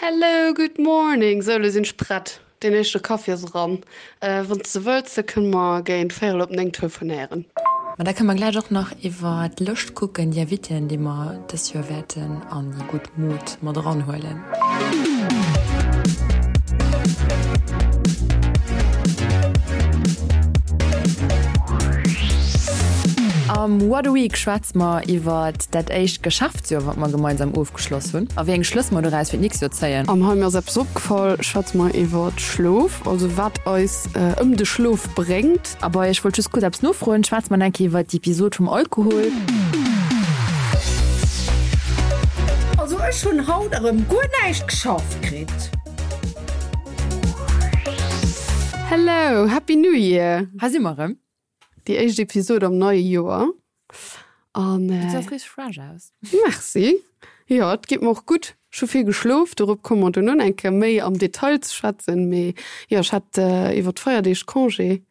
Hello, good morning! Sou, lo sinn ech prett. Deen éischte Kaffi ass eran. Wann s de wëlls, da kënne mer géint véierel op 9 telefonéieren. Ma da kënne mer gläich och nach iwwer d'Lëscht kucken, déi Invitéen, déi mer dës Joer wäerten an déi gutt Mod mat eranhuelen. Am What a Week schwätze mer iwwer dat éischt Geschäftsjoer, wat mer gemeinsam ofgeschloss hunn, a wéi eng Schlëss mer doraus fir d'nächst Joer zéien. Am Hei mir ass eppes opgefall schwätze mer iwwer Schlof, also wat eis ëm de Schlof bréngt. A bei Ech wollt just kuerz eppes nofroen schwätze mer eng Kéier iwwer d'Episod vum Alkohol. Also ech hunn haut erëm guer näischt geschafft kritt. Hello, Happy New Year! Hei si mer erëm. Déi éischt Episod am neie Joer. An Du gesäis richteg fresh aus. Merci. Jo, et geet mer och gutt. Ech hu vill geschlof, dorop komme mer duerno eng Kéier méi am Detail ze schwätzen. Mee jo, ech hat iwwer d'Feierdeeg Congé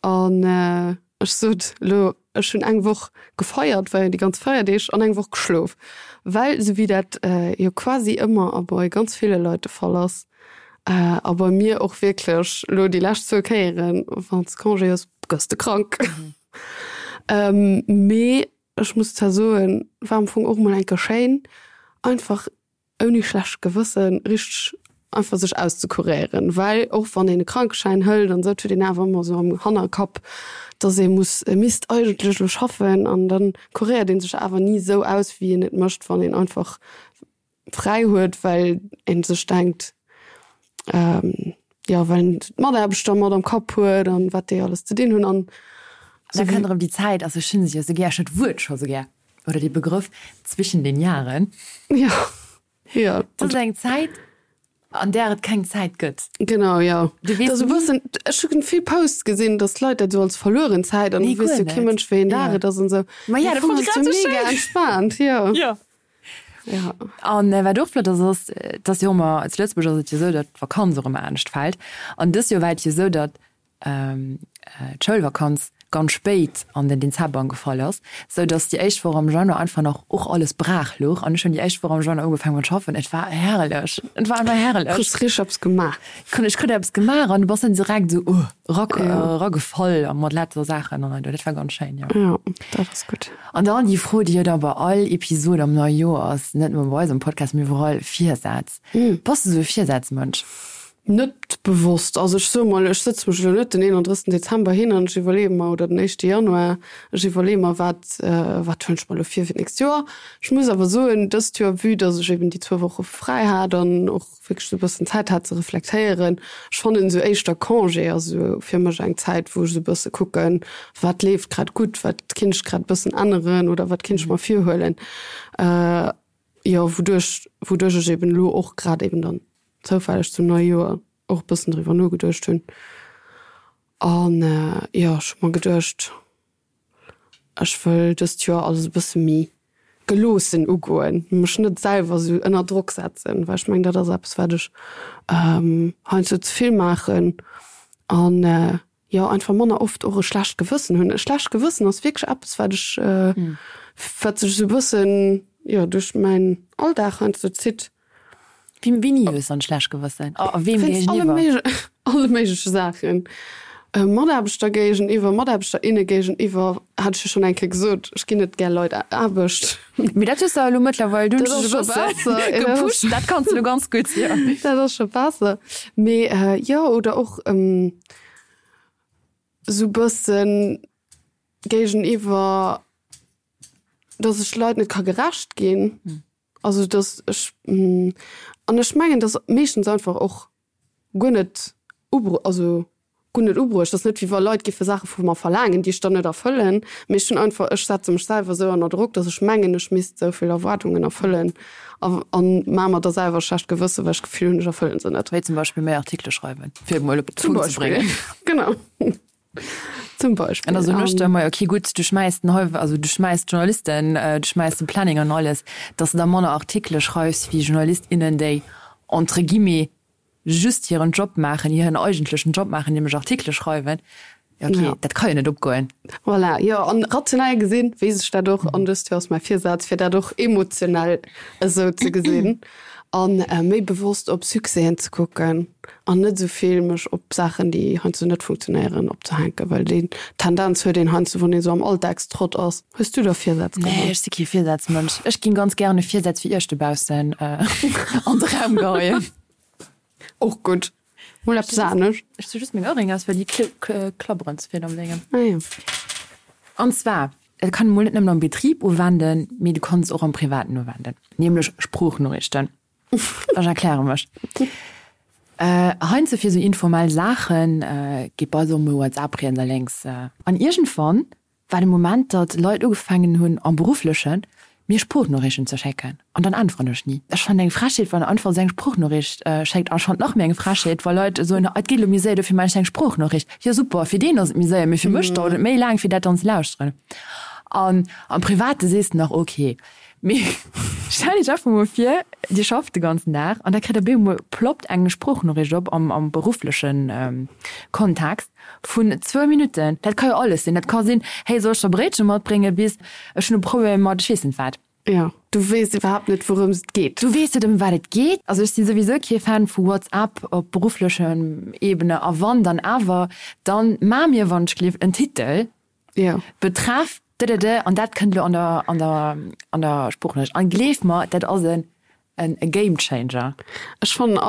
an ech sot elo, ech hunn eng Woch gefeiert, war jo déi ganz Feierdeeg, an eng Woch geschlof. Well esou wéi dat jo quasi ëmmer a bei ganz ville Leit de Fall ass, a bei mir och wierklech elo déi lescht zwou Kéieren, wann s de Congé hues, gëss de krank. Mee ech muss zwar soen, war am Fong och mol eng Kéier schéin, einfach ouni schlecht Gewëssen richteg einfach sech auszekuréieren, well och wann een e Krankeschäin hëlt an esou, et huet een awer ëmmer esou am Hannerkapp, dass ee muss, e misst eigentlech elo schaffen an dann kuréiert ee sech awer ni esou aus, wéi een et mécht, wann een einfach fräi huet, well een sech denkt, jo, well een d'Mataarbechter mat am Kapp huet an wat déi alles ze dinn hunn an. Da kënnt erëm déi Zäit, also ech hunn se jo esou gär, ech hunn d'Wuert scho sou gär, oder dee Begrëff zwischen den Jahren. Jo, jo. Dat ass eng Zäit, an där et keng Zäit gëtt. Genau, jo. Du weess ni. Bëssen, ech hu vill Posts gesinn, datt d'Leit dat esou als verlueren Zäit an du weess jo kee Mënsch, wéi een Dag et ass an esou. Ma ja, dat fand ech grad esou schéin. Mega entspaant, jo. Jo. Ja. An wat och flott ass, ass, dass jo ëmmer, zu Lëtzebuerg ass et jo esou, datt d'Vakanz och ëmmer anescht fält. An dës Joer war et jo esou, datt d'Schoulvakanz ganz spéit an den Dezember gefall ass, sou datt déi éischt Woch am Januar einfach nach och alles braach louch. An ech hunn déi éischt Woch am Januar ugefaangen mat schaffen. Et war herrlech. Et war einfach herrlech. Kriss richteg eppes gemaach. Ech krut eppes gemaach an du bass dann direkt esou, uh. Eragefall a mat lauter Saachen an dat war ganz schéin, jo. Jo, dat ass gutt. An dann déi Fro, déi jo da bei all Episod am neie Joer ass, net nëmme bei eisem Podcast, mee iwwerall, Virsätz. Bass de sou e Virsätzmënsch? Net bewosst. Also ech soe mol, ech sëtze mech elo net den 31. Dezember hin an ech iwwerleeë mer, oder den éischte Januar, ech iwwerleeë mer, wat, wat huelen ech mer elo vir fir d'nächst Joer. Ech muss awer soen, dëst Joer, vue dass ech eben déi zwou Woche fräi hat an och wierklech esou e bëssen Zäit hat ze reflektéieren. Ech fannen esou éischter Congé ass esou fir mech eng Zäit, wou ech esou e bësse kucken, wat leeft grad gutt, wat kinnt ech grad e bëssen änneren oder wat kinnt ech mer virhuelen. Jo, wouduerch, wouduerch ech eben elo och grad eben dann zoufälleg zum neie Joer och e bëssen driwwer nogeduecht hunn. An jo, ech hu mer geduecht, Ech wëll dëst Joer alles e bësse méi geloossen ugoen, mech net selwer esou ënner Drock setzen, well ech mengen, dat ass eppes, wat ech heiansdo ze vill maachen an jo einfach manner oft och e schlecht Gewëssen hunn. E schlecht Gewëssen ass wierklech eppes, wat ech, wat sech esou e bëssen, jo, duerch mäin Alldag heiansdo zitt. Wéini hues dann schlecht Gewëssen? A weem géigeniwwer? Alle méigleche Saachen. Mataarbechter géigeniwwer, Mataarbechter, inne géigeniwwer, hat ech jo schonn eng Kéier gesot, ech ginn net gär Leit Aarbecht. Mee dat hues de elo mëttlerweil, du hues dech e bësse gepusht, dat kanns de elo ganz gutt, jo. Dat ass scho besser. Mee jo, oder och esou bëssen géigeniwwer, datt ech Leit net ka gerecht ginn. Also dass ech, an ech mengen, dass meeschtens einfach och guer net ubru also guer net ubruecht ass, net wéi wa Leit géife Saache vu mer verlaangen, déi ech dann net erfëllen, mee ech hunn einfach, ech setze mech selwer esou ënner Drock, dass ech mengen, ech misst esou vill Erwaardungen erfëllen a a maache mer da selwer e schlecht Gewësse well ech d'Gefill hunn, ech erfëllen se net. Wéi zum Beispill méi Artikele schreiwen, fir et mol op de Punkt ze bréngen. Genau. Zum Beispill. An da soen ech der emmer, okay gutt, du schmäiss den Häuf, also du schmäiss d'Journalisten, du schmäiss de Planning an alles, dass de da manner Artikele schreifs wéi Journalist, innen, déi entre guillemets just hiren Job maachen, hiren eigentlechen Job maachen, nämlech Artikele schreiwen. Ja okay, dat ka jo net opgoen. Voilà, jo, an rationell gesinn weess ech dat och, an dëst Joer ass mäi Virsaz, fir dat och emotionell esou ze gesinn. An méi bewosst op Succèsen ze kucken an net esou vill mech op Saachen, déi heiansdo net funktionéieren, opzehänken, well déi Tendenz huet een heiansdo, wann een esou am Alldagstrott ass. Hues du da Virsätz geholl? Nee, ech si kee Virsazmënsch. Ech ginn ganz gären Virsätz fir Iech dobaussen an de Raum geheien. Och gutt. Mol eppes anescht. Ech zu just meng Ohrringe aus, well déi klabberen ze vill am Déngen. Ah jo. An zwar, dat kann een mol net nëmmen am Betrib uwenden, mee du kanns et och am Privaten uwenden, nämlech Sproochnoriichten. Ech erkläre mech. Heiansdo fir esou informell Saachen geet bei eis och mol WhatsApp riets a lénks. An iergendwann war de Moment, datt Leit ugefaangen hunn, am Berufflechen, mir Sproochnoriichten ze schécken. An dann äntweren ech ni. Ech fannen eng Frechheet, wann einfach esou eng Sproochnoriicht schéckt. An ech fannen et nach méi eng Frechheet, wa Leit soen, et geet elo méi séier, dofir maachen ech eng Sproochnoriicht. Jo super, fir deen ass et méi séier, mee fir mech dauert et méi laang, fir dat dann ze lauschteren. An am Private sees de nach, ok. Mee stellt iech einfach mol vir, dir schafft de ganzen Dag an da kritt der bemol ploppt eng Sproochnoriicht op am am berufflechen Kontext vun zwou Minutten. Dat ka jo alles sinn. Dat ka sinn, hey, soll ech der Bréitche matbréngen bis ech hunn e Problem mat ech weess net wat. Jo, du weess iwwerhaapt net wourëms et geet. Du weess net ëm wat et geet. Also ech si souwisou kee Fan vu WhatsApp op berufflechem Ebene a wann dann awer, dann maa mir wann ech gleef en Titel, Jo. Betreff dëdëdë an dat kënnt elo an der an der an der Sproochnoriicht. An gleef mer, dat ass en en Game Changer. Ech fannen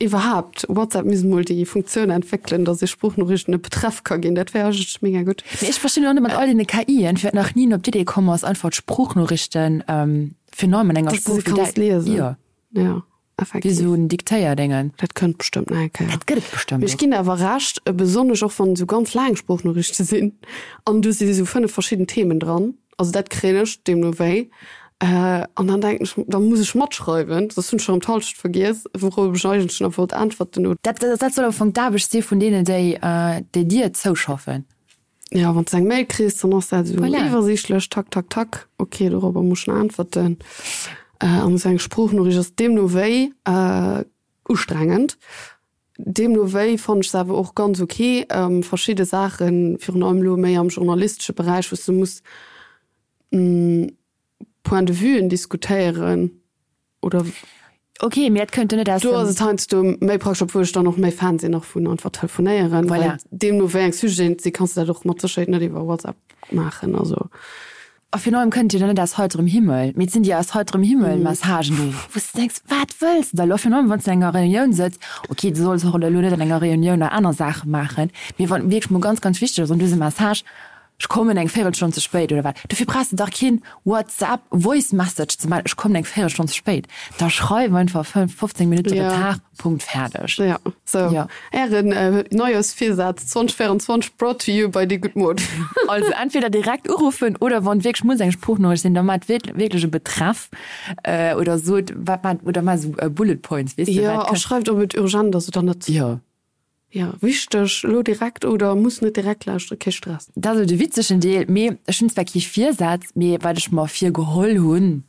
iwwerhaapt, WhatsApp misst mol déi Funktioun entwéckelen, datt ee Sproochnoriichten e Betreff ka ginn. Dat wär eigentlech mega gutt. Mee ech verstinn och net mat all deene KIen, firwat nach ni een op d'Idee komm ass, einfach d'Sproochnoriichten virun allem an enger Dass de se Sprooch wéi kanns liesen. Jo. Jo. Effektiv. Wéi sou en Diktéierdéngen. Dat kënnt bestëmmt nach eng Kéier. Dat gëtt et bestëmmt Mee ech ginn der awer Recht, besonnesch och wann et sou ganz laang Sproochnoriichte sinn an do si sou 5 verschidden Themen dran. Also dat kréien ech deemno wéi. An dann denken ech, da muss ech matschreiwen, soss hunn ech erëm d'Hallschent vergiess, wourop ech eigentlech nach wollt äntwerten. Dat, dat soll am Fong d'Aarbecht si vun deenen, déi, déi dir zouschaffen. Jo, wann s de eng Mail kriss, dann ass dat esou voilà. iwwersiichtlech, tak, tak, tak, ok, dorobber muss ech nach äntwerten. An esou eng Sproochnoriicht ass deemno wéi ustrengend. Deemno wéi fannen ech se awer och ganz ok. Verschidde Saachen, virun allem elo méi am journalistesche Beräich, wou s de muss Point de vuen diskutéieren oder. Ok, mee dat kënnt jo net aus dem. Do ass et heiansdo méi praktesch, obwuel ech dann och méi Fan sinn och vun einfach telefonéieren. Voilà. Well deemno wéi eng Sujeten et sinn, kanns de dat och mat Sécherheet net iwwer WhatsApp maachen, also. A virun allem kënnt jo dann net aus heiterem Himmel, mee et sinn déi aus heiterem Himmel Messagen do, wou s de denks, wat wëlls de da elo? Virun allem wann s de an enger Reunioun sëtz, ok, du solls och elo net an enger Reunioun nach aner Saache maachen, mee wann et wierklech mol ganz, ganz wichteg ass an du hues e Message, Ech kommen eng Véirelstonn ze spéit oder wat? Dofir brauchs de dach keen WhatsApp Voice Message ze maachen, ech kommen eng Véirelstonn ze spéit. Da schreif einfach 15 Minutte Ja. Retard, Punkt, fäerdeg. Ja, sou. Ja. Ären Neijooschvirsaz 2024 brought to you by déi gutt Mod. Also entweder direkt uruffen oder wann wierklech muss eng Sproochnoriicht sinn, da maacht wierklech e Betreff oder sot wat maacht oder maacht esou Bullet Points, weess de, Jo, wat a schreift ob et urgent ass oder net. Jo. Jo, wichteg, elo direkt oder muss net direkt lauschteren, kee Stress. Dat ass elo de witzegen Deel, mee ech hunn zwar kee Virsaz, mee wat ech mer virgeholl hunn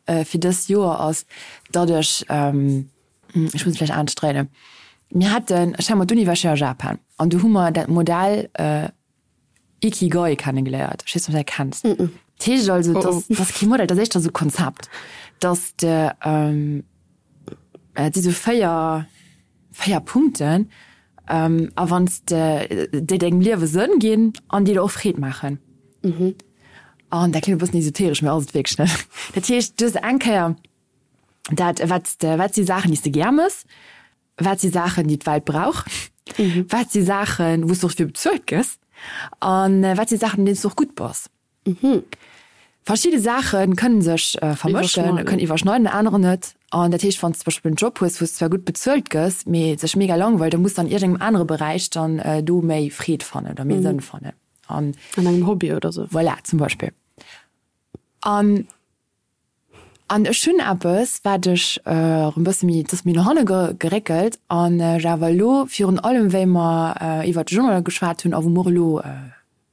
fir dëst Joer ass, datt ech, ech muss et vläicht anescht dréinen, mir haten, ech war mat d'Uni war ech jo a Japan an do hu mer dat Modell Ikigai kennegeléiert. Ech weess net, ob du dat kenns. Dat heescht also, dat ass kee Modell, dat ass éischter esou e Konzept, datt de, et si sou 4, 4 Punkten, a wann s de, déi dengem Liewe Sënn ginn an déi der och Freed maachen. An dat kléngt e bëssen esoteresch, mee ass et wierklech net. Dat heescht, du hues eng Kéier dat, wat s de, wat si Saachen, déi s de gär mëss, Wat si Saachen, déi d'Welt brauch? Wat si Saachen, wou s de och dofir bezuelt gëss? A wat si Saachen, an deenen s de och gutt bass? Verschidde Saache kënne sech vermëschen, kënnen iwwerschneiden, anerer net. An dat heescht, wann s de zum Beispill en Job hues, wou s de zwar gutt bezuelt gëss, mee sech mega langweilt, da muss de an iergendengem anere Beräich dann do méi Freed fannen oder méi Sënn fannen. An engem Hobby oder sou. Voilà, zum Beispill. An An ech hunn eppes, wat ech erëm e bësse méi, et ass méi no hanne geréckelt an ech awer elo virun allem, wéi mer iwwert de Journal geschwat hunn a wou mer och elo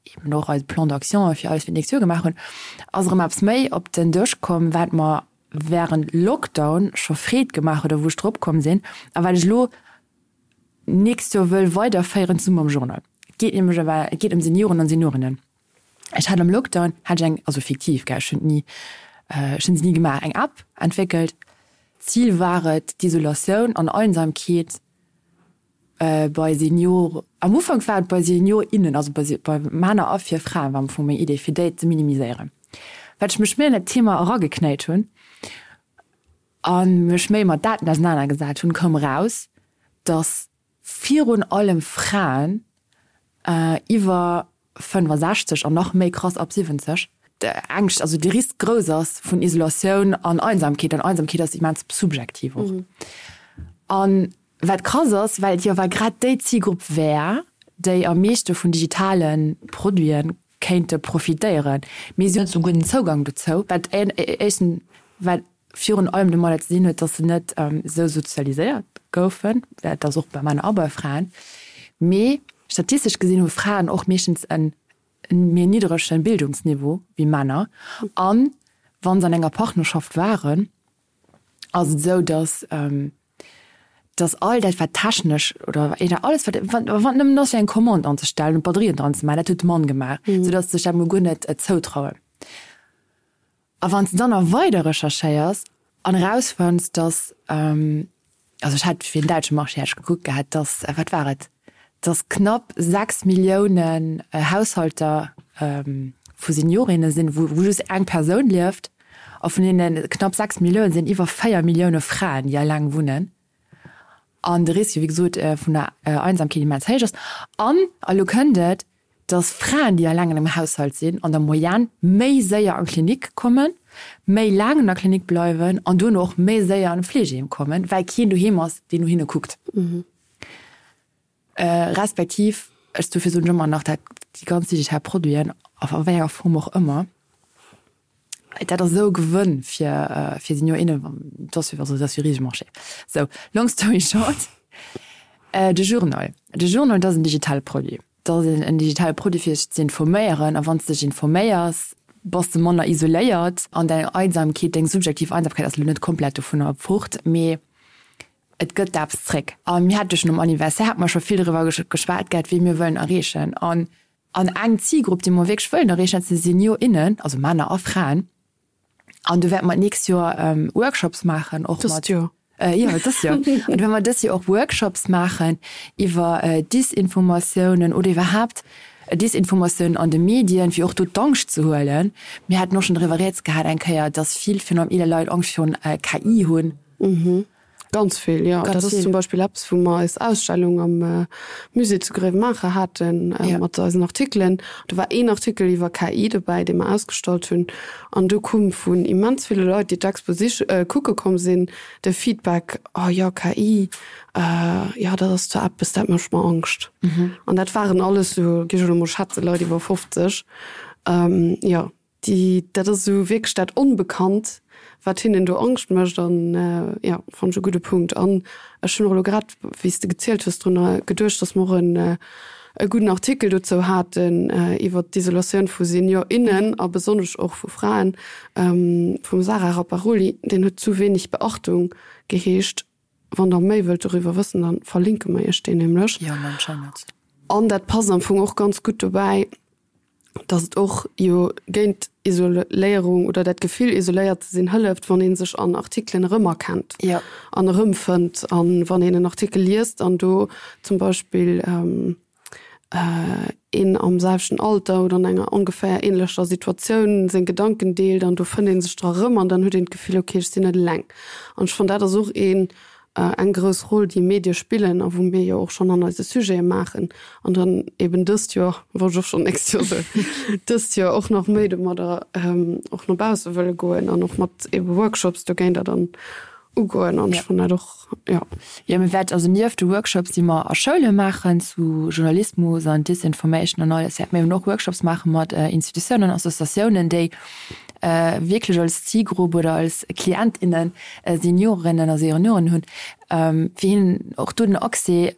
eben och eise Plan d'action fir alles fir d'nächst Joer gemaach hunn, ass erëm eppes méi op den Dësch komm, wat mer während Lockdown scho Freed gemaach huet a wou ech drop komm sinn a wat ech elo d'nächst Joer wëll weiderféieren zesumme mam Journal. Et geet nämlech ëm, et geet ëm Senioren an Seniorinnen. Ech hat am Lockdown hat ech eng, also fiktiv, gell, ech hunn ni, ech hunn se ni gemaach, eng App entwéckelt. D'Zil war et, d'Isolatioun an Einsamkeet bei Senior, am Ufank war et bei Senior, innen, also bei bei Männer a fir Fraen war am Fong meng Idee, fir déi ze minimiséieren. Well ech mech méi an dat Thema erageknéit hunn a mech méi mat Daten ausenanergesat hunn, koum eraus, datt virun allem Fraen iwwer 65 an nach méi krass ab 70, d'Ängscht, also de Risk grouss ass vun Isolatioun an Einsamkeet. An Einsamkeet ass immens subjektiv och. An wat krass ass, well et jo awer grad déi Zilgrupp wär, déi am meeschte vun digitale Produite kéinte profitéieren, mee si hunn net esou gudden Zougang dozou, wat éischten, wat virun allem domadder ze dinn huet, dass se net esou sozialiséiert goufen, dat ass och bei Männer a bei Fraen, mee statistesch gesinn hu Fraen och meeschtens e méi nidderege Bildungsniveau wéi Männer an wa se an enger Partnerschaft waren, ass et esou, dass dass all dat wat technesch oder alles wat wann nëmmen ass fir eng Commande anzestellen und Batterien dran ze maachen, dat huet de Mann gemaach, soudass se sech dat mol guer net zoutrauen. A wann s de dann nach weider recherchéiers an erausfënns, dass, also ech hat fir den däitsche Marché hat ech gekuckt gehat, dass, wat war et, dass knapp 6 Milliounen Haushalter vu Seniorinne sinn, wou just eng Persoun lieft, a vun deene knapp 6 Millioune sinn iwwer 4 Millioune Fraen, déi eleng wunnen. An de Risque, wéi gesot, vun der Einsamkeet immens héich ass. An, a lo kënnt et, dass Fraen, déi eleng an engem Haushalt sinn, an der Moyenne méi séier an d'Klinik kommen, méi laang an der Klinik bleiwen an duerno och méi séier an e Fleegeheem kommen, well keen doheem ass, deen no hinne kuckt. Respektiv, ech, dofir soen ech ëmmer nach, dat déi ganz digital Produiten, a wéi enger Form och ëmmer, Dat ass esou e Gewënn fir fir Senior, innen, dat ass also dat ass jo e risege Marché. Sou, long story short, de Journal, de Journal, dat ass en digitale Produit. Dat ass en digitale Produit fir sech ze informéieren a wann s de dech informéiers, bass de manner isoléiert an deng Einsamkeet, deng subjektiv Einsamkeit ass elo net komplett dovunner fort, mee et gëtt eppes zréck. A mir hate schonn um Anniversaire, hate mer scho vill driwwer geschwat gehat, wee mir wëllen erreechen an An eng Zilgrupp, déi mer wierklech wëllen erreechen, dat si Senior, innen, also Männer a Fraen. An do wäerte mer d'nächst Joer Workshops maachen, och mat. Dëst Joer. Jo, dëst Joer. An do wäerte mer dëst Joer och Workshops maachen iwwer Disinformatiounen oder iwwerhaapt Disinformatiounen an de Medien, fir och do d'Angscht ze huelen. Mir haten och schonn driwwer rieds gehat eng Kéier, dass vill, virun allem eeler Leit, Angscht virun KI hunn. Ganz vill, jo. Dat ass zum Beispill eppes, wou mer eis Ausstellung am Musée zu Gréiwemaacher haten mat eisen Artikelen. Do war een Artikel iwwer KI dobäi, dee mer ausgestallt hunn. An do koum vun immens ville Leit, déi d'Expo sich kucke komm sinn, de Feedback, Oh jo, KI, jo, dat ass zwar eppes, dat mécht mer Angscht. An dat waren alles esou, géif ech elo mol schätzen, Leit iwwer 50. Jo. Déi, dat ass esou wierklech dat Onbekannt, wat hinnen do Angscht mécht. An jo, fannen ech e gudde Punkt. An ech hunn och elo grad, wéi s de gezielt hues, drun geduecht, datt mer och en e gudden Artikel dozou haten iwwert d'Isolatioun vu Senior, innen a besonnesch och vu Fraen, vum Sara Rapparoli. Deen huet Zu wenig Beachtung geheescht. Wann der méi wëllt doriwwer wëssen, da verlinke mer iech deen nämlech. Jo, an den Shownotes. An dat passt am Fong och ganz gutt dobäi, dass et och jo géint Isoléierung oder dat Gefill isoléiert ze sinn hëlleft, wann ee sech an Artikelen erëmerkennt an erëmfënnt. An wann een en Artikel liest an do zum Beispill een am selwechten Alter oder an enger ongeféier änlecher Situatioun seng Gedanken deelt an do fënnt ee sech dra erëm an dann huet een d'Gefill, okay, ech sinn net eleng. An ech fannen dat ass och een eng grouss Roll, déi Medie spillen a wou mir jo och schonn an eise Sujete maachen an dann eben dëst Joer, wollt ech och schonn nächst Joer soen, dëst Joer och nach méi domadder och no bausse wëlle goen an och mat ebe Workshops dogéinter dann ugoen an ech fannen dat och, jo. Jo, mir wäerten also nieft de Workshops, déi mer a Schoule maachen zu Journalismus an Disinformation an alles, wäerte mir eben och Workshops maache mat Institutiounen, Associatiounen, déi wierklech als Zilgrupp oder als Klient, innen Seniorinnen a Senioren hunn, fir hinnen och do den Accès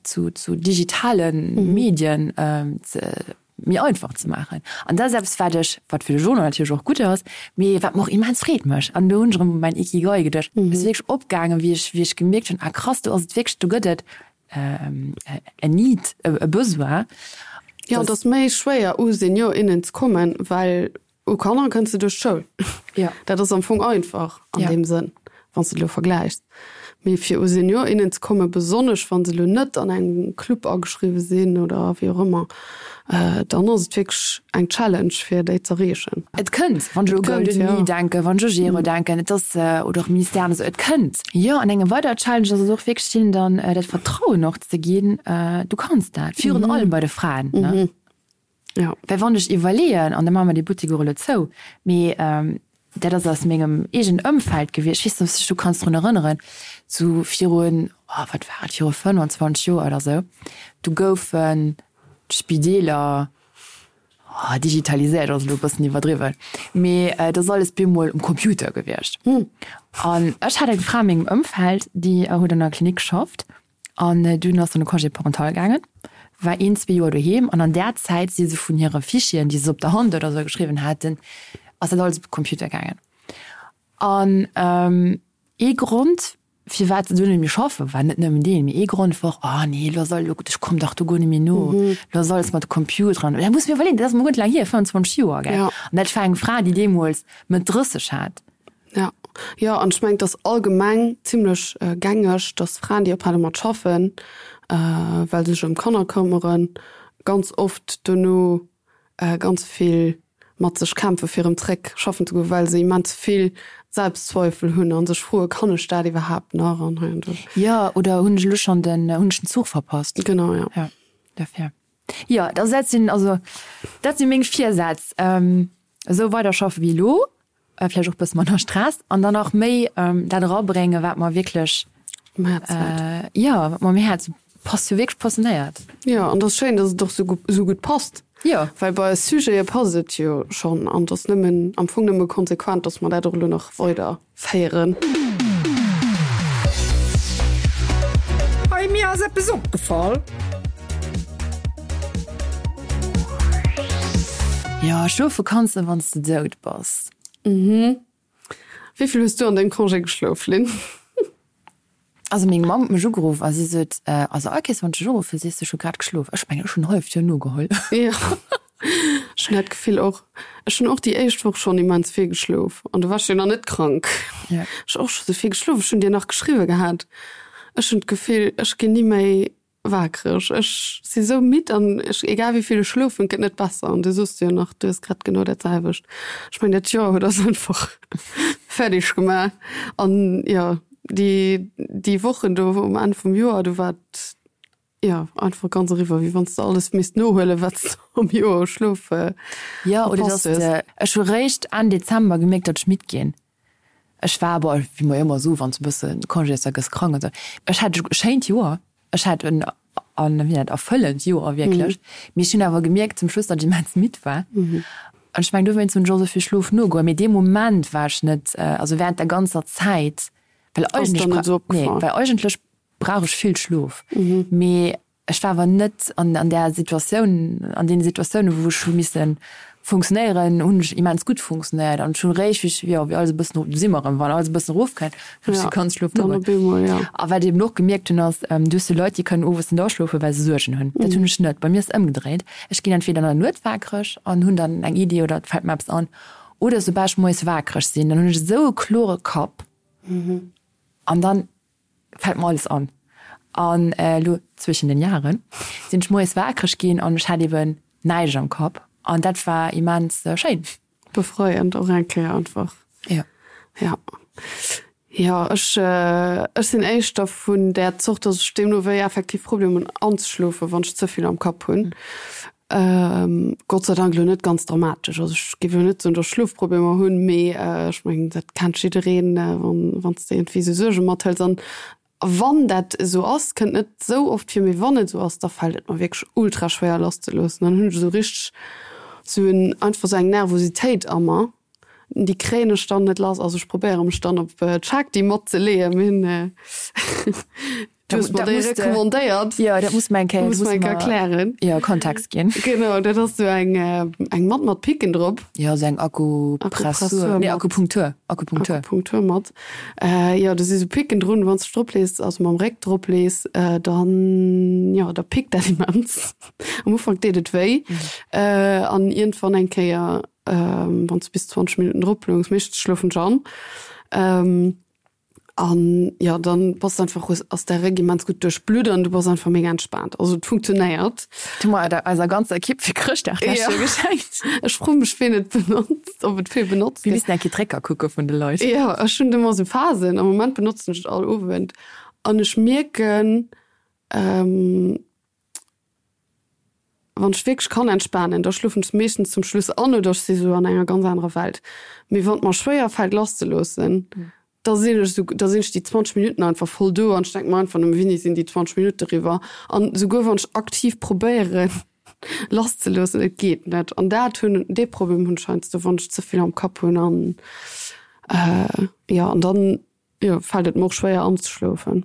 zu zu digitale Medien ze méi einfach ze maachen. An dat ass eppes, wat ech, wat fir de Journal natierlech och gutt ass, mee wat mer och immens Freed mécht. An do hunn ech erëm u mäin Ikigai geduecht. Et ass wierklech opgaangen, wéi ech, wéi ech gemierkt hunn, ah krass, do ass et wierklech, do gëtt et en Need, e Besoin. Jo, et ass méi schwéier u Senior, innen ze kommen, well U Kanner kënns de duerch d'Schoul. Ja. Dat ass am Fong einfach an ja. deem Sënn. Wann s de et elo vergläichs. Mee fir u Senior, innen ze kommen, besonnesch wa se elo net an engem Club ageschriwwe sinn oder wéi och ëmmer, dann ass et wierklech eng Challenge fir déi z'erreechen. Et kënnt, wann ech u Golden Knee denken, wann ech u Gero denken, et ass, oder och Ministèren esou, et kënnt. Jo, an eng weider Challenge ass et och wierklech hinnen dann dat Vertrauen och ze ginn, du kanns dat, virun allem bei de Fraen, ne? Ja. Well wann ech iwwerleeën, an da maache mer dee Buttek och elo zou, mee dat ass aus mengem eegenen Ëmfeld gewiescht, ech weess net, ob s de dech do kanns drun erënneren, sou virun, oh wat war et, viru 25 Joer oder sou, du goufen d'Spideeler, oh digitaliséiert ass elo e bëssen iwwerdriwwen, mee et ass alles bemol um Computer gewiescht. An ech hat eng Fra a mengem Ëmfeld, déi huet an der Klinik geschafft An dunn ass se an de Congé parental gaangen, war een, zwee Joer doheem an an där Zäit si se vun hire Fichieren, déi se op der Hand oder esou geschriwwen haten, ass dat alles op de Computer gaangen. An ee Grond, firwat se dunn net méi schaffen, war net nëmmen deen, mee ee Grond wor, Oh nee, elo ass alles, elo, ech komm dach do guer net méi no, elo ass alles mat de Computeren. Dat muss mir iwwerleeën, dat ass mol guer net laang hier, 25 Joer, gell. An dat war eng Fra, déi deemools Mëtt 30 hat. Ja, jo, an ech mengen, et ass allgemeng zimlech gängeg, dass Fraen, déi ophale mat schaffen, well se sech ëm Kanner këmmeren, ganz oft dono ganz vill mat sech kämpfe fir erëm zréck schaffen ze goen, well se immens vill Selbstzweifel hunn a sech froen, Kann ech dat iwwerhaapt nach an hei an do. Jo, oder hunn ech elo schonn den, hunn ech den Zuch verpasst? Genau, jo. Jo, dofir. Jo, also dat sinn, also dat si meng Virsätz. Esou weider schaffe wéi elo, vläicht och e bësse manner Stress an dann och méi dat erabréngen, wat mer wierklech Um Häerz läit. Jo, wat mer um Häerz passt jo wierklech passionéiert. Jo, an et ass schéin, datt et och esou gutt passt. Jo. Well bei eis Sujete passt et jo schonn an et ass nëmmen, am Fong nëmme konsequent, datt mer dat och elo nach weider féieren. Hey, mir ass eppes opgefall. Jo, schlofe kanns de wanns de dout bass. Mhm. Wéi vill hues du an dengem Congé geschlof, Lynn? Also meng Mamm huet mech ugeruff a si sot, also all Kéiers wann ech dech uruffen, sees de, ech hu grad geschlof. Ech mengen, ech hunn en halleft Joer nogeholl. Jo, ech hunn dat Gefill och. Ech hunn och déi éischt Woch schonn immens vill geschlof an du waars jo nach net krank. Ja. Ech hu och scho sou vill geschlof. Ech hunn dir nach geschriwwe gehat, ech hunn d'Gefill, ech ginn ni méi Waakreg. Ech si sou midd an ech, egal wéi vill ech schlofen, et gëtt net besser. An du soos jo nach, du hues grad genau dat selwecht. Ech mengen, dat Joer huet eis einfach fäerdeg gemaach. An jo, déi, déi Wochen do um Enn vum Joer, do war et jo einfach ganz eriwwer, wéi wann s de alles misst nohuelen, wat s de am Joer u Schlof Jo, oder verpasst dass hues. de, ech hu réischt Enn Dezember gemierkt, datt ech midd ginn. Ech war, bon, wéi mer jo ëmmer soen, wann s de e bësse Congé hues, da gëss krank an esou. Ech hat e schéint Joer, ech hat en, en, wéi nennt, erfëllend Joer wierklech. Mee ech hunn awer gemierkt zum Schluss, datt ech immens midd war. An ech mengen, dowéinst hunn ech och esou vill Schlof nogeholl. Mee dee Moment war ech net, also während der ganzer Zäit, well eigentlech, nee, well eigentlech brauch ech vill Schlof. Mee Ech war awer net an an där Situatioun, an deene Situatiounen, wou ech hu misse funktionéieren, hunn ech immens gutt funktionéiert. An ech hunn eréischt, wéi ech, jo, wéi alles e bëssen, do si mer erëm, wann alles e bëssen erofkënnt, hunn ech de ganze Schlof nogeholl. A wat ech eben och gemierkt hunn, ass, du hues jo Leit, déi kënnen owes net aschlofen, well se Suergen hunn. Dat hunn ech net. Bei mir ass et ëmgedréit. Ech ginn entweder an der Nuet waakreg an hunn dann eng Iddi oder et fält mer eppes an, oder soubal ech moies waakreg sinn, dann hunn ech esou e klore Kapp an dann fällt mer alles an. An elo zwischen den Jahren sinn ech moies waakreg ginn an ech hat eben näischt am Kapp an dat war immens schéin. Befreiend och eng Kéier einfach. Jo. Ja. Jo, ech ech sinn éischter vun där Zort, dass ech deemno wéi effektiv Problemer hunn anzeschlofen, wann ech ze vill am Kapp hunn. Gott sei Dank elo net ganz dramatesch. Also ech géif elo net soen, datt ech Schlofproblemer hunn, mee ech mengen, dat kennt jiddereen, wann wann s de iergendwéi esou Suerge mathëls. An wann dat esou ass, kënnt net esou oft vir, mee wann et esou ass, da fält et mer wierklech ultra schwéier lasszeloossen. Dann hunn ech esou richteg esou en einfach esou eng Nervositéit a mer, déi kréien ech dann net lass. Also ech probéiere mech dann op d'Shakti matzeleeën, mee Du hues mer déi recommandéiert. Jo, dat muss mer eng Kéier, muss mer eng Kéier erklären. Jo, Kontext ginn. Genau, dat ass sou eng, eng Matt mat Picken drop. Jo, sou eng Akupressur, nee, Akupunktur, Akupunktur. Akupunkturmatt. Jo, do si sou Picken drun, wann s de drop lees, also mam Réck drop lees, dann, jo, da pickt dat immens. Am Ufank deet et wéi, an iergendwann eng Kéier, wann s de bis 20 Minutten drop loungs, meeschtens schlofen ech an. An jo, dann bass de einfach, hues, ass däi Réck immens gutt duerchblutt an du bass einfach mega entspaant. Also et funktionéiert. Hu mer der eiser ganzer Ekipp fir Chrëschtdag d'lescht Joer geschenkt. Ech froe mech ween et benotzt, ob et vill benotzt gëtt. Mir missten eng Kéier d'Récker kucke vun de Leit. Jo, ech hunn ëmmer esou Phasen. Am Moment benotzen ech et all Owend an ech mierken, Wann ech wierklech kann entspanen, da schlofen ech meeschtens zum Schluss an oder ech si sou an enger ganz anerer Welt. Mee wann et mer schwéier fält lasszeloossen, da sinn ech sou, da sinn ech déi 20 Minutten einfach voll do an ech denke mer einfach nëmme, Wéini sinn déi 20 Minutte eriwwer? An souguer wann ech aktiv probéieren lasszeloossen, et geet net. An dat hunn, dee Problem hunn ech heiansdo, wann ech ze vill am Kapp hunn an jo, an dann, jo, fält et mer och schwéier anzeschlofen.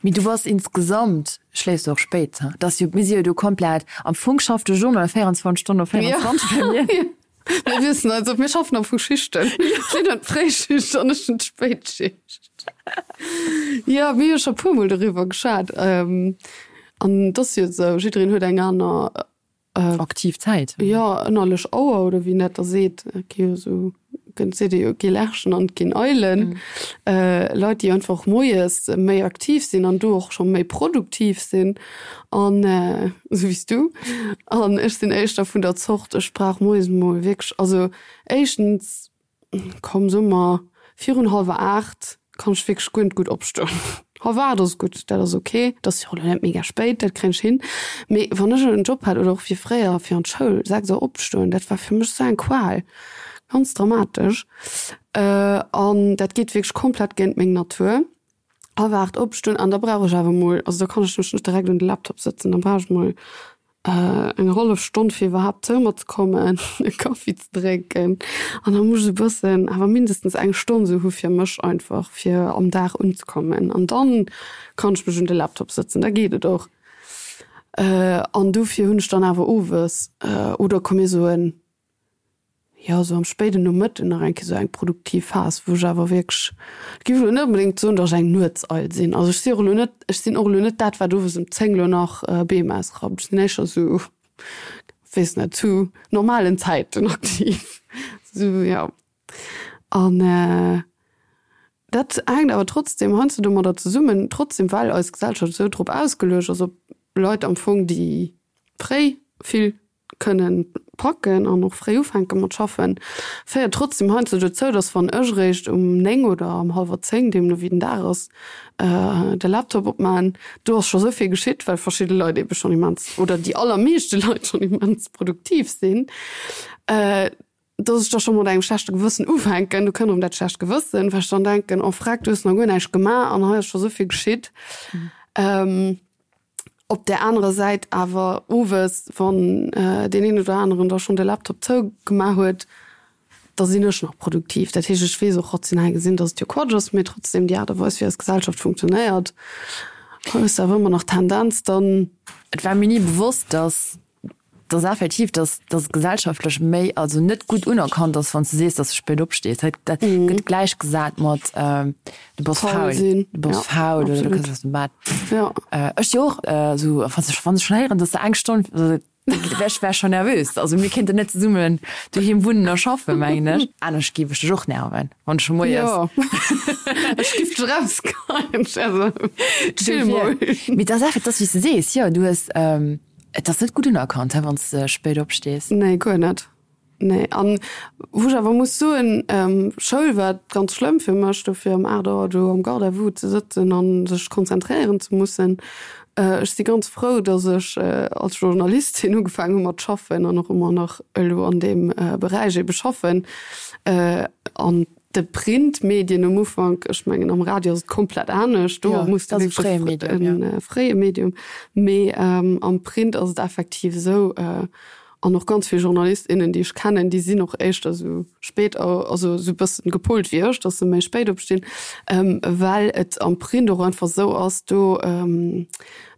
Mee du bass insgesamt, schléifs du och spéit, he? Dat ass jo, mir si jo do komplett, am Fong schafft de Journal 24 Stonnen op 24 bei mir. Mir wissen also, mir schaffen am Fong Schichten. Si huet d'Fréischicht an ech hunn d'Spéitschicht. Jo, mir hu scho e puermol doriwwer geschwat. An et ass jo esou, jiddereen huet eng aner Aktiv Zäit. Jo, ënnerlech Auer oder wéi een dat da seet. Et gi jo esou, gëtt seet ee jo, et gi Lerchen an et ginn Eilen. Leit, déi einfach moies méi aktiv sinn an do och scho méi produktiv sinn an esou wéi s du. An ech sinn éischter vun der Zort, ech brauch moies emol wierklech, also éischtens, Komm so mer, virun hallwer 8 kann ech wierklech guer net gutt opstoen. Hallwer 8 ass gutt, dat ass ok, dat ass jo och elo net mega spéit, dat kréien ech hin. Mee wann ech en Job hat oder och wéi fréier fir an d'Schoul, 6 Auer opstoen, dat war fir mech esou eng Qual, ganz dramatesch. An dat geet wierklech komplett géint meng Natur. Hallwer 8 opstoen an da brauch ech awer mol, also da kann ech mech net direkt un de Laptop sëtzen, da brauch ech mol eng hallef Stonn fir iwwerhaapt zou mer ze kommen, e Kaffi ze drénken an da muss ech e bëssen, awer mindestens eng Stonn esou hu fir mech einfach, fir am Dag unzekommen an dann kann ech mech un de Laptop sëtzen, da geet et och. An dofir hunn ech dann awer owes oder komm mir soen, jo, esou am spéiden Nomëtten nach eng Kéier esou eng produktiv Phas, wou ech awer wierklech, ech géif elo net onbedéngt soen, datt ech eng Nuetseil sinn. Also ech si och elo net, ech sinn och elo net dat, wat owes ëm 10 elo nach Beem ausrappt. Ech sinn éischter esou, weess net, zu normalen Zäiten aktiv. Esou, jo. An dat hänkt awer trotzdem heiansdo domadder zesummen, trotzdem well eis Gesellschaft esou drop ausgeluecht ass, op Leit am Fong, déi fréi vill kënnen packen an och fréi ufänke mat schaffen, féiert trotzdem heiansdo dozou, dass wann ech eréischt um 9 oder um hallwer 10, deemno wéi den Dag ass, de Laptop opmaachen, do ass scho sou vill geschitt, well verschidde Leit eebe schonn immens, oder déi allermeeschte Leit schonn immens produktiv sinn, dass ech da scho mat engem schlechte Gewëssen ufänken. Do kënnt erëm dat schlecht Gewëssen, well ech dann denken, oh freck, du hues nach guer näischt gemaach an hei ass scho sou vill geschitt. Op där anerer Säit awer owes, wann deen een oder aneren da schonn de Laptop zougemaach huet, da sinn ech nach produktiv. Dat heescht, ech weess och rational gesinn, datt et jo Quatsch ass, mee trotzdem déi Aart a Weis, wéi eis Gesellschaft funktionéiert, hues de awer ëmmer nach d'Tendenz dann. Et war mir ni bewosst, datt dass effektiv, dass dass gesellschaftlech méi, also net gutt unerkannt ass, wann s de sees, dass de spéit opstees. Dat dat gëtt gläichgesat mat du bass faul, du bass faul oder du kënns aus dem Bett. Ech si och esou, wann ech wann ech schonn héieren, dass de eng Stonn, also ech wär schonn nervös. Also mir kéinten net zesummen doheem wunnen a schaffen, mengen ech. Anescht géif ech dech och nerven, wann ech scho moies. Jo, ech géif dech erausgeheien. Also chill mol. Mee et ass effektiv, et ass wéi s de sees, jo, du hues. Et ass net gutt unerkannt, he, wann s de spéit opstees. Nee, guer net. Nee. An wou ech awer muss soen, Schoul war ganz schlëmm fir mech, dofir um 8 Auer do am Garde à vous ze sëtzen a sech konzentréieren ze mussen. Ech si ganz frou, datt ech als Journalistin ugefaangen hu mat schaffen an och ëmmer nach elo an deem Beräich ebe schaffen. An De Printmedien um Ufank, ech mengen am Radio ass et komplett anescht, do muss du wierklech e fréie Medium, mee am Print ass et effektiv esou, an och ganz vill Journalist, innen, déi ech kennen, déi sinn och éischter esou spéit, also esou e bëssen gepolt wéi ech, datt se méi spéit opstinn, well et am Print och einfach esou ass, do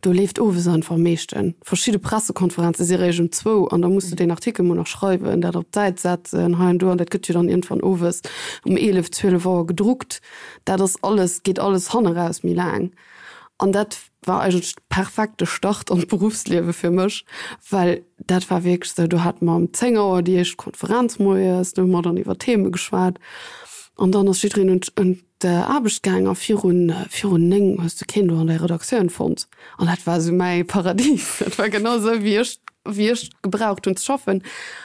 Do leeft owes einfach am meeschten. Verschidde Pressekonferenze si réischt um zwou an da muss de deen Artikel mol nach schreiwen, dat op d'Säit setzen, hei an do an dat gëtt jo dann iergendwann owes um 11, 12 Auer gedruckt. Dat ass alles, geet alles hanneraus méi laang. An dat war eigentlech de perfekte Start an d'Beruffsliewe fir mech, well dat war wierklech esou, do hate mer um 10 Auer déi éischt Konferenz moies, do hu mer dann iwwer Theme geschwat an dann ass jiddereen un. d'Aarbecht gaang a virun, virun 9 hues de keen do an der Redaktioun fonnt. An dat war esou mäi Paradies. Dat war genau esou, wéi ech, wéi ech gebraucht hunn ze schaffen.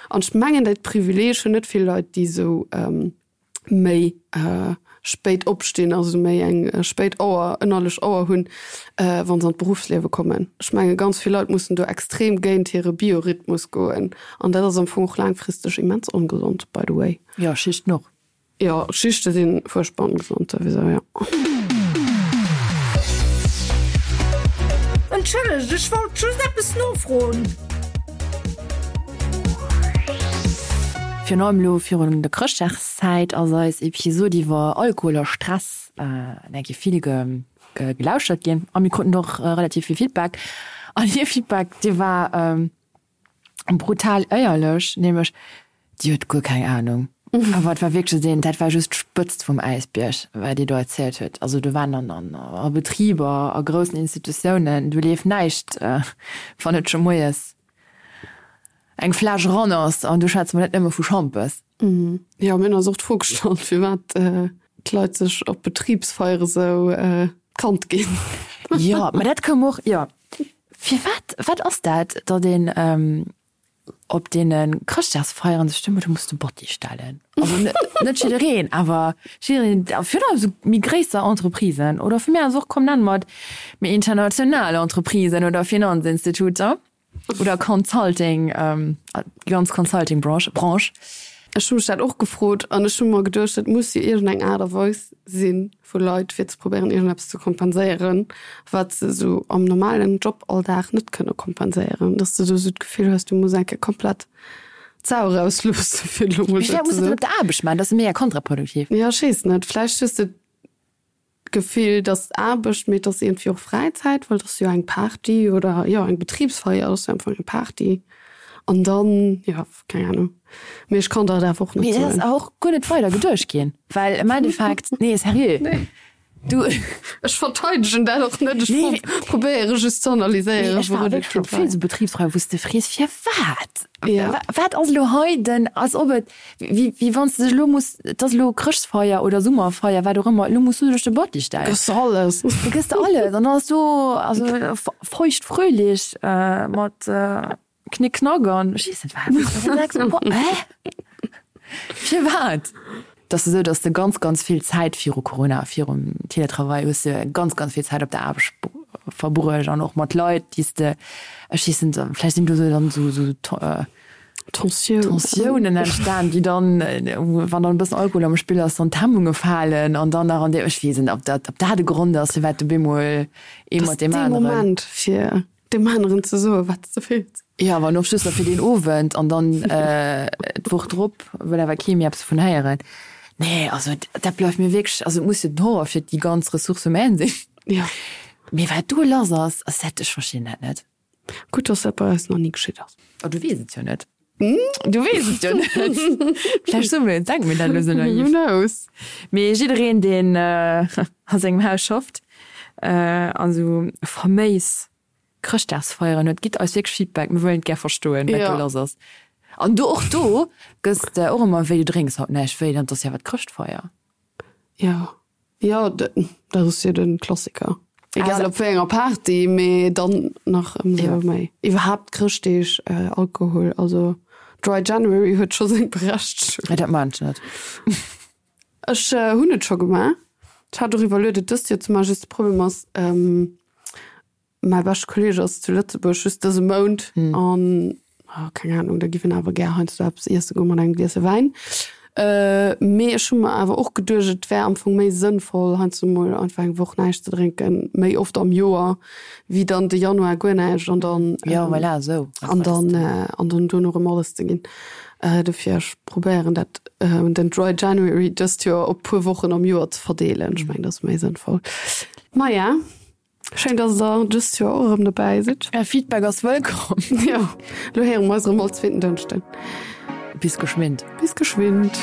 An ech mengen, dat Privileeg hunn net vill Leit, déi esou méi spéit opstinn, also méi eng spéit Auer, ënnerlech Auer hunn, wa se an d'Beruffsliewe kommen. Ech menge ganz vill Leit mussen do extrem géint hire Biorhythmus goen. An dat ass am Fong och laangfristeg immens ongesond, by the way. Jo, Schichten och. Jo, Schichte si fuerchtbar ongesond souwisou, jo. Entschëllegt, ech wollt just eppes nofroen. Virun allem elo virun der Chrëschtdagszäit ass eis Episod iwwer Alkohol a Stress eng Kéier vill gelauschtert ginn a mir kruten och relativ vill Feedback. An hir Feedback, dee war brutal éierlech, nämlech Déi huet guer keng Ahnung. Awer et war wierklech esou een, dat war just d'Spëtzt vum Äisbierg, wat déi do erzielt huet. Also do waren dann an a Betriber, a groussen Institutiounen, do leeft näischt, wann net scho moies eng Fläsch eran ass. An do schwätze mer net nëmme vu Schampes. Jo, mir hunn eis och d'Fro gestallt, firwat d'Leit sech op Betribsfeiere sou d'Kand ginn. Jo, mä dat koum och, jo. Firwat, wat ass dat, datt een op deene Chrëschtdagsfeieren sech du muss de Botti stellen. Also net jiddereen, awer jiddereen, virun allem esou méi gréisser Entreprisen oder vu mir aus och, komm nenne mer et méi international Entreprisen oder Finanzinstituter oder Consulting, déi ganz Consulting-Branche, Branche. Ech hu mech dat och gefrot an ech hu mer geduecht, et muss jo iergendeng Aart a Weis si vu Leit, fir ze probéieren, iergendeppes ze kompenséieren, wat se esou am normalen Joballdag net kënne kompenséieren. Dass de do esou d'Gefill hues, du muss eng Kéier komplett d'Sau erausloossen, fir elo mol esou ze soen. Mee firwat muss de dat op der Aarbecht maachen? Dat ass mega kontraproduktiv. Jo, ech weess net. Vläicht hues de D'Gefill, dass Aarbecht, mee et ass iergendwéi och Fräizäit, well et ass jo eng Party oder jo eng Betribsfeier ass jo am Fong eng Party. An dann, jo, keng Ahnung. Mee ech kann der et awer och net Mee dat ass soen. awer och guer net weider geduecht ginn, well am Endeffekt, nee, seriö, Nee. du. Ech verteidegen dat och net, ech Nee. probéiere just ze Mee analyséieren, ech war wourun et wierklech op kéint vill leien. esou Betribsfeieren, wou s de frees, firwat? Ja. Wat ass elo hei den, als ob et, wéi, wéi wann s de dech elo muss, et ass elo Chrëschtfeier oder Summerfeier, wat och ëmmer, elo muss du dech de Botti stellen. Gëss de alles. Da gëss de alles an dann ass do, also feucht fröhlich mat Knick Knack an ech weess net wat. An du denks, Hä? Firwat? Et ass esou, datt s de ganz, ganz vill Zäit viru Corona, virum Teletravail hues de ganz, ganz vill Zäit op der Aarbecht verbruecht an och mat Leit, déi s de, ech weess net, vläicht sinn do esou dann esou esou Tensiounen entstan, déi dann, wann dann e bëssen Alkohol am Spill ass, dann d'Hemmunge falen an dann nach an deem, ech weess net, ob dat, ob dat e Grond ass, firwat du bemol ee mat deem aneren. Dee Moment fir Deem aneren ze soen, wat s de fills. Jo, awer och just fir deen Owend an dann d'Woch drop wëll awer kee méi eppes dovun héieren. Nee, also dat bleift mir wierklech, also et muss jo den Horror fir déi ganz Ressources humaines sinn. Jo. Mee wat do lass ass, ass dat, ech verstinn dat net. Gutt, dass dat bei eis nach ni geschitt ass. Oh, du weess et jo net. Du weess et jo net. Vläicht soe mir, denke mir dat elo esou naiv. Who knows? Mee jiddereen, deen a sengem Haus schafft an esou faméis Chrëschtdagsfeieren huet, gitt eis wierklech Feedback. Mir wëllen et gär verstoen, wat do lass ass. An do, och do gëss de och ëmmer, wéi du drénks haut näischt, wéi dann, 't ass jo awer d'Chrëschtfeier. Jo. Jo, dat ass jo de Klassiker. Egal op wéi enger Party, mee dann nach ëmsou méi. Iwwerhaapt Chrëschtdeeg, Alkohol, also Dry January huet scho seng Berechtegung. Nee, dat maan ech net. Ech hunn et scho gemaach. Ech hat och iwwerluet et dëst Joer ze maachen, just de Problem ass, Mäi beschte Kolleeg ass zu Lëtzebuerg just dëse Mount an keng Ahnung, da giff en awer gär heiansdo eppes iesse goen mat engem Gliese Wäin. Mee ech hu mer awer och geduecht, et wär am Fong méi sënnvoll heiansdo mol einfach eng Woch näischt ze drénken, méi oft am Joer, wéi dann de Januar guer näischt an dann Jo, voilà, esou. an dann an dann duerno erëm alles ze ginn. Dofir ech probéieren dat den Dry January dëst Joer op puer Wochen am Joer ze verdeelen. Ech mengen dat ass méi sënnvoll. Maja. Schéin dass der dëst Joer och erëm dobäi sidd. Är Feedback ass wëllkomm. Jo, lo héiere mer eis erëm all zweeten Dënschden. Bis geschwind. Bis geschwind.